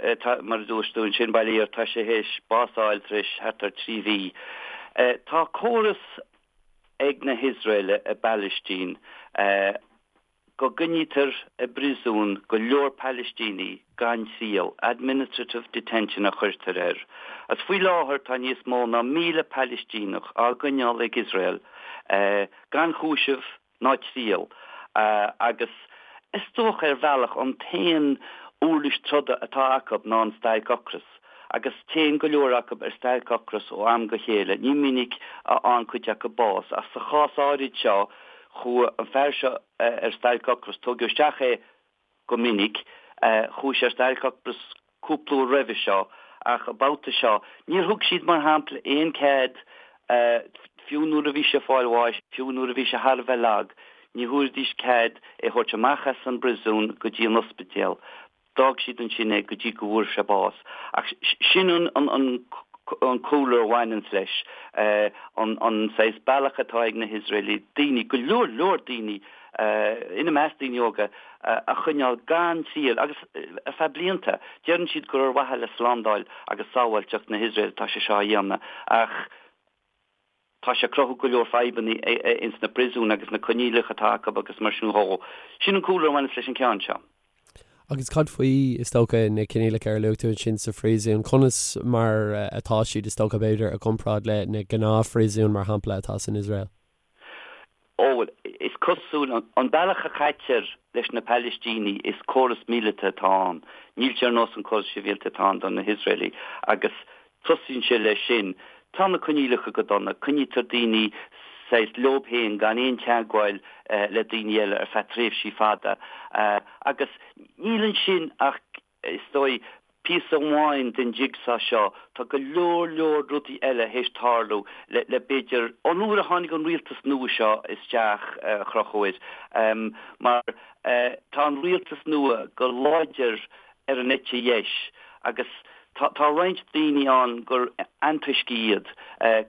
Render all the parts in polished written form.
Mar a dúirt tú ansin, bail ó Dhia air, tá sé théis bás a fháil tar éis thart ar 3 mhí. Tá córas ag na hIosraelaigh i bPalaistín go gcoinnítear i bpríosún go leor Palaistínigh gan triail, administrative detention a chuirtear air. Agus faoi láthair tá níos mó ná 1,000 Palaistíneach á gcoinneáil ag Iosrael gan chúiseamh ná triail agus is dócha ar bhealach an t-aon uirlis troda atá acu ná an stailc ocrais agus téann go leor acu ar stailc ocrais ó am go chéile. Ní minic a fhaigheann cuid acu bás ach sa chás áirid seo chuaigh an fear seo ar stailc ocrais, tógadh isteach é go minic. Chuaigh sé ar stailc ocrais cúpla uair roimhe seo ach an babhta seo níor thug siad, mar shampla, aon cead, fiú nuair a bhí sé ag fáil bháis, fiú nuair a bhí sé thar a bheith lag, ní thabharfaidís cead é a thabhairt amach as an bpriosún go dtí an ospidéal. D'fhág siad ansin é go dtí go bhfuair sé bás. Ach sin an cúlra a bhaineanns leis, an saghas bealach atá ag na hIosraelaigh daoine, go leor leor daoine, ina measc daoine óga, a choinneáil gan triail agus ar feadh blianta. Deireann siad gur ar mhaithe le slándáil agus sábháilteacht na hIosrael atá sé seo á dhéanamh ach tá sé ag cruthú go leor fadhbanna ins na príosúin agus na coinníollacha atá acu agus mar sin dhó. Sin an cúlra a bhaineas leis an ceann seo. Agus cad faoi, is dócha, na coinníollacha ar luaigh tú ansin sa phríosún? Conas mar atá siad, is dócha, b'fhéidir, i gcomparáid le na gnáthphríosúin, mar shampla, atá san Iosrael? Ó, bhuel, is cosúil, an bealach a chaitear leis na Palaistínigh, is córas míleata atá ann. Níl sé ar nós an córas sibhialta atá ann do na hIosraelaigh agus tosaíonn sé leis sin. Tá na coinníollacha go dona, coinnítear daoine saghas leob féin gan aon teagmháil le daoine eile ar feadh tréimhsí fada agus níl ansin ach Is dóigh, píosa amháin den jigsaw seo, tá go leor leor rudaí eile théis tarlú le, le b'fhéidir, ón uair a tháinig an rialtas nua seo isteach, a Chonchúir, mar tá an rialtas nua go láidir ar an eite dheis agus tá, tá roinnt daoine ann gur antoiscigh iad,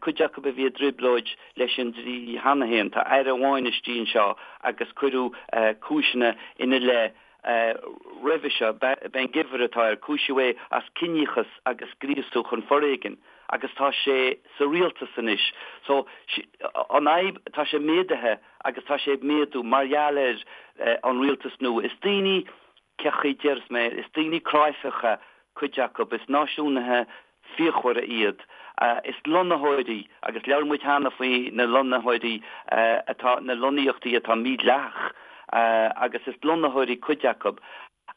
cuid acu a bhí i dtrioblóid leis an dlí cheana féin. Tá aire amháin istigh anseo agus cuireadh cúiseanna ina leith Roimhe seo, Ben Gvir atá air, cúisíodh é as ciníochas agus gríosú chun foréigin agus tá sé sa rialtas anois. So, an fhadhb, tá sé méadaithe agus tá sé ag méadú mar gheall ar an rialtas nua. Is daoine, cén chaoi a déarfas mé, is daoine cráifeacha cuid acu, is náisiúnaithe fíochmhara iad. Is lonnaitheoirí, agus labhair muid cheana faoi na lonnaitheoirí atá, na lonnaíochtaí atá mídhleathach, agus is lonnaitheoirí cuid acu.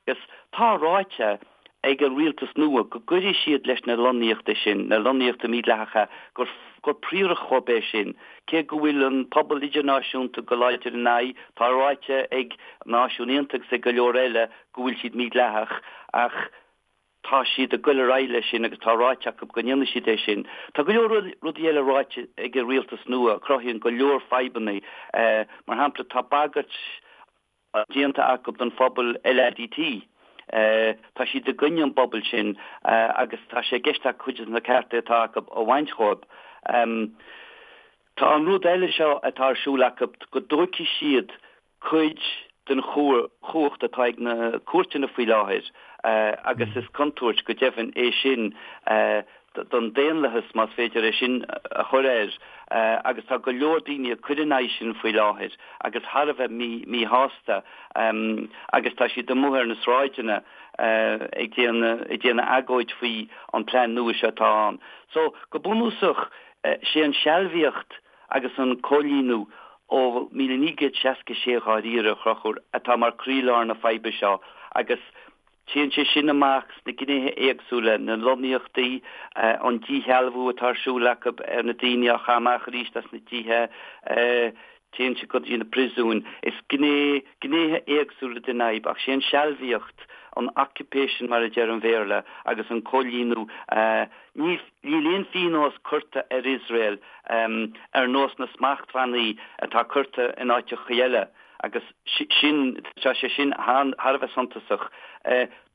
Agus tá ráite ag an rialtas nua go gcuirfidh siad leis na lonnaíochtaí sin, na lonnaíochtaí mídhleathacha, gur gur príoracht dhóibh é sin. Cé go bhfuil an pobal idirnáisiúnta go láidir ina aghaidh, tá ráite ag Náisiúin Aontaithe agus ag go leor eile go bhfuil siad mídhleathach, ach Tá siad ag goil ar aghaidh leis sin agus tá ráite acu go ndéanfaidh siad é sin. Tá go leor rudaí eile ráite ag an rialtas nua a chruthaíonn go leor fadhbanna. Mar shampla, tá bagairt déanta acu don phobal LADT. Tá siad i gcoinne an bpobal sin agus tá sé i gceist acu cuid de na cearta atá acu a bhaint dhóibh. Tá an rud eile seo atá ar siúl acu go dtógfaidh siad cuid den chumhacht atá ag na cúirteanna faoi láthair agus is contúirt go deimhin é sin don daonlathas, más féidir é sin a chur air, agus tá go leor daoine ag cur in aghaidh sin faoi láthair agus thar a bheith míshásta agus tá siad amuigh ar na sráideanna ag déanamh agóid faoi an plean nua seo atá ann. So, go bunúsach, sé an sealbhaíocht agus an coilíniú ó 1966 dháiríre, a Chonchúir, atá mar croílár na faidhbe seo agus téann sé sin amach sna gnéithe éagsúla, na lonnaíochtaí, an díshealbhú atá ar siúl acu ar na daoine á chaitheamh amach arís as na tithe, téann sé go dtí na príosúin. Is gné, gnéithe éagsúla den fhadhb ach sé an sealbhaíocht, an occupation mar a deir an Bhéarla, agus an coilíniú, ní, Níl aon phionós curtha ar Iosrael ar nós na smachtbhannaí atá curtha in áiteacha eile agus sin, tá sé sin thar a bheith suntasach.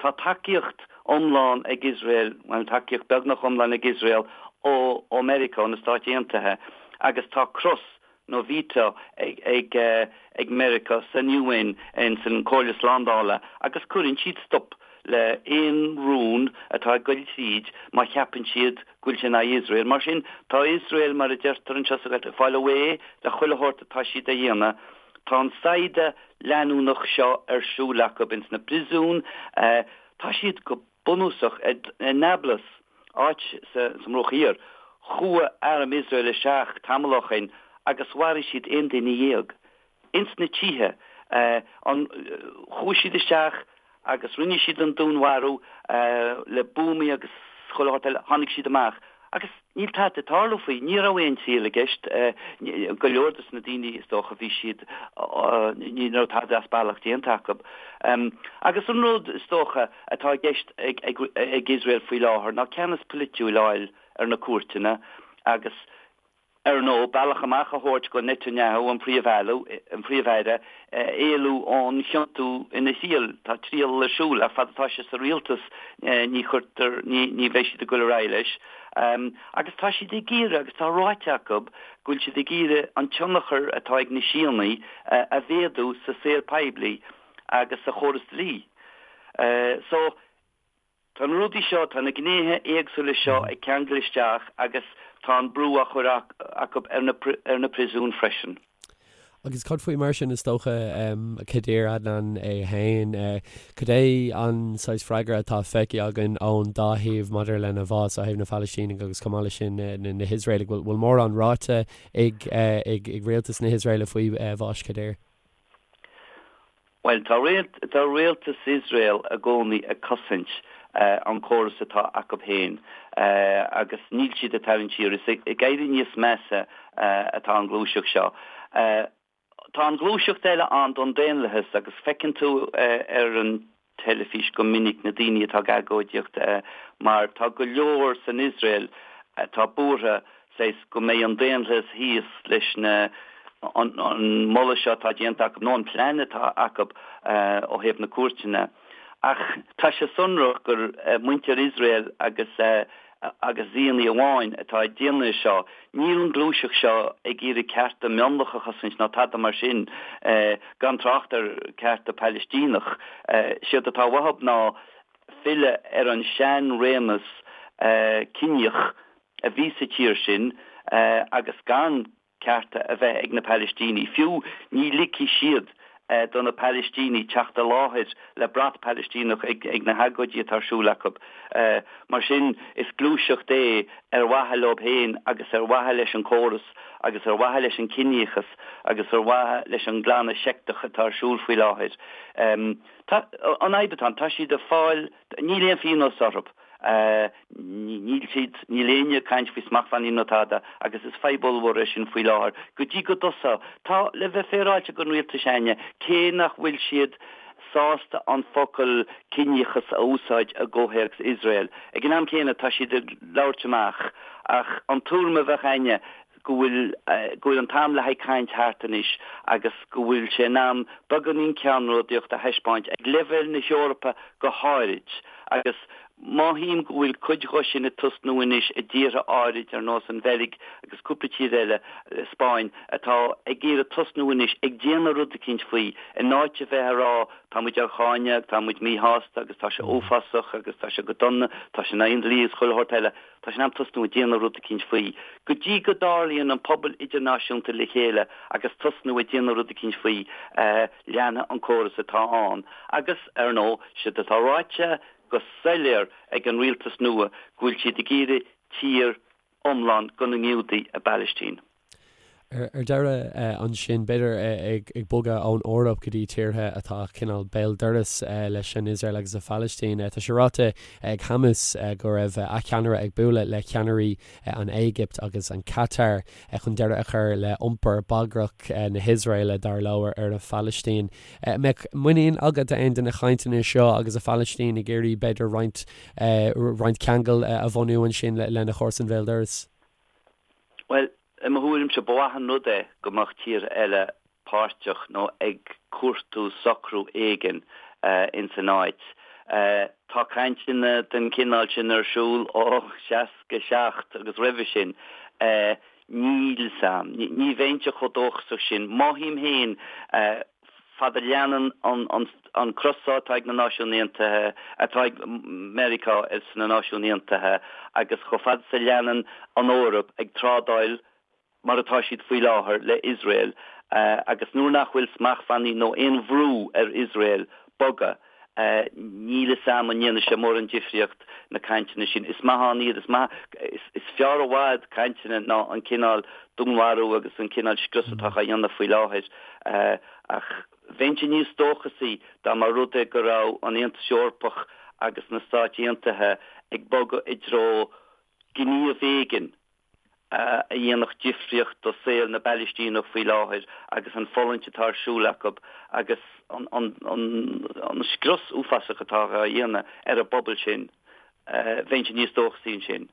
Tá tacaíocht iomlán ag Iosrael, bhuel tacaíocht beagnach iomlán ag Iosrael ó ó Meiriceá, ó na Stáit Aontaithe agus tá cros nó veto ag ag Meiriceá san UN, ins an Comhairle Slándála agus cuireann siad stop le aon rún. atá ag goil tríd má cheapann siad go bhfuil sé in aghaidh Iosrael. Mar sin, tá Iosrael, mar a deirtear anseo sa Ghaeltacht, ag fáil away le chuile shórt atá siad a dhéanamh. Tá an saighdeadh leanúnach seo ar siúl acu ins na príosúin. Tá siad go bunúsach i Nablus, áit sa mBruach Thiar. Chuaigh arm Iosrael isteach tamall ó shoin agus mharaigh siad 11 duine. Ins na tithe. Chuaigh siad isteach agus rinne siad an dúnmharú le buamaí agus chuile shórt eile. Tháinig siad amach agus níl tada ag tarlú faoi. Ní raibh aon triail i gceist. Go leor dos na daoine, is dócha, bhí siad, ní raibh tada as bealach déanta acu. Agus an rud, is dócha, atá i gceist ag Iosrael faoi láthair ná ceannas polaitiúil a fháil ar na cúirteanna agus, ar ndóigh, bealach amach a thabhairt go Netanyahu, an Príomh-Aire, éalú ón chiontú ina thriail. Tá triail ar siúl, ach fad atá sé sa rialtas ní chuirtear, ní bheidh siad ag goil ar aghaidh leis. Agus tá siad ag iarraidh, agus tá ráite acu, go bhfuil siad ag iarraidh an tionchar atá ag na Síónaigh a mhéadú sa saol poiblí agus sa chóras dlí. So. Tá na rudaí seo, tá na gnéithe éagsúla seo ag ceangal isteach agus tá an brú á chur acu ar na príosúin freisin. Agus cad faoi mar sin, is dócha, Khader Adnan é féin, cad é an saghas freagra atá feicthe againn ón dá thaobh maidir lena bhás, ó thaobh na Phalaistínigh agus chomh maith leis sin na hIosraelaigh? Bhfuil mórán ráite ag rialtas na hIosraeile faoi bhás Khader? Bhuel, tá tá rialtas Iosrael i gcónaí ag cosaint an córas atá acu féin agus níl siad ag tarraingt siar. Is ag éirí níos measa atá an ghluaiseacht seo. Tá an ghluaiseacht eile ann don daonlathas agus feiceann tú ar an teilifís go minic na daoine atá ag agóidíocht mar tá go leor san Iosrael atá buartha saghas go mbeidh an daonlathas thíos leis na an moladh seo atá déanta acu nó an plean atá acu ó thaobh na cúirteanna. Ach tá sé sonrach gur muintir Iosrael agus agus Zíonaí amháin atá ag déanamh é seo. Níl an ghluaiseacht seo ag iarraidh cearta mionlach a chosaint ná tada mar sin, gan trácht ar cearta Palaistíneach. Séard atá uathu ná filleadh ar an sean-réimeas ciníoch a bhí sa tír sin agus gan cearta a bheith ag na Palaistínigh. Fiú ní ligfidh siad do na Palaistínigh teacht i láthair le brat Palaistíneach ag na hagóidí atá ar siúl acu. Mar sin, is gluaiseacht é ar mhaithe leo féin agus ar mhaithe leis an córas agus ar mhaithe leis an ciníochas agus ar mhaithe leis an nglanadh seicteach atá ar siúl faoi láthair. Tá, an fhadhb atá ann, tá siad ag fáil, níl aon phionós orthu. Níl siad, níl éinne ag caint faoi smachtbhannaí nó tada agus is fadhb ollmhór é sin faoi láthair. Go dtí go dtosóidh. Tá, le bheith féaráilte don rialtas s'againne, cé nach bhfuil siad sásta an focal ciníochas a úsáid i gcomhthéacs Iosrael, ag an am céanna tá siad ag labhairt amach ach an tuairim a bheadh againne go bhfuil go bhfuil an t-am le haghaidh caint thart anois agus go bhfuil sé in am beagáinín ceannródaíocht a thaispeáint ag leibhéal na hEorpa go háirid agus mothaím go bhfuil cuid dho sin ag tosnú anois i dtíortha áirid ar nós an Bheilg agus cúpla tír eile, Spáinn, atá ag iarraidh tosnú anois ag déanamh rud eicínt faoi in áit a bheith ag rá tá muid á cháineadh, tá muid míshásta agus tá sé uafásach agus tá sé go dona, tá sé in aghaidh an dlí agus chuile shórt eile. Tá sé in am tosnú ag déanamh rud eicínt faoi. Go dtí go dtarlaíonn an pobal idirnáisiúnta le chéile agus tosnú ag déanamh rud eicínt faoi, leanfaidh an córas atá ann. Agus, ar ndóigh, séard atá ráite go soiléir ag an rialtas nua go bhfuil siad ag iarraidh tír iomlán do na nGiúdaigh i bPalaistín. Ar deireadh ansin, b'fhéidir ag bogadh ón Eoraip go dtí tíortha atá cineál béal dorais leis an Iosrael agus an Phalaistín, tá sé ráite ag Hamas go raibh a cheannaire ag bualadh le ceannairí an Éigipt agus an Catar chun deireadh a chur le iompar bagrach na hIosraeile, dar leo, ar an Phalaistín. Mbeadh muinín agat aon de na cainteanna seo agus an Phalaistín ag iarraidh b'fhéidir roinnt roinnt ceangal a bhunú ansin lena chomharsain bhéal dorais? Bhuel, i mo thuairimse, ba mhaith an rud é go mbeadh tíortha eile páirteach nó ag cuartú socrú éigin ins an áit. Tá cainteanna den chineál sin ar siúl ó 67 agus roimhe sin. Níl 's a'm. Ní bheinnse chomh dóchasach sin. Mothaím féin. Fad a leanann an crosáid atá ag na Náisiúin Aontaithe, atá ag Meiriceá sna Náisiúin Aontaithe agus chomh fada is a leanann an Eoraip ag trádáil mar atá siad faoi láthair le Iosrael agus nuair nach bhfuil smachtbhannaí nó aon bhrú ar Iosrael bogadh, níl fhios a'm an ndéanfaidh sé mórán difríocht na cainteanna sin. Is maith ann iad, is maith, is fearr i bhfad cainteanna ná an cineál dúnmharú agus an cineál scrios atá á dhéanamh faoi láthair. Ach bheinnse níos dóchasaí dá mba rud é go raibh an Aontas Eorpach agus na Stáit Aontaithe ag bogadh i dtreo gníomh éigin a dhéanfadh difríocht do saol na bPalaistíneach faoi láthair agus an fulaingt atá ar siúl acu agus an scrios uafásach atá á dhéanamh ar an bpobal sin. Bheinnse níos dóchasaí ansin.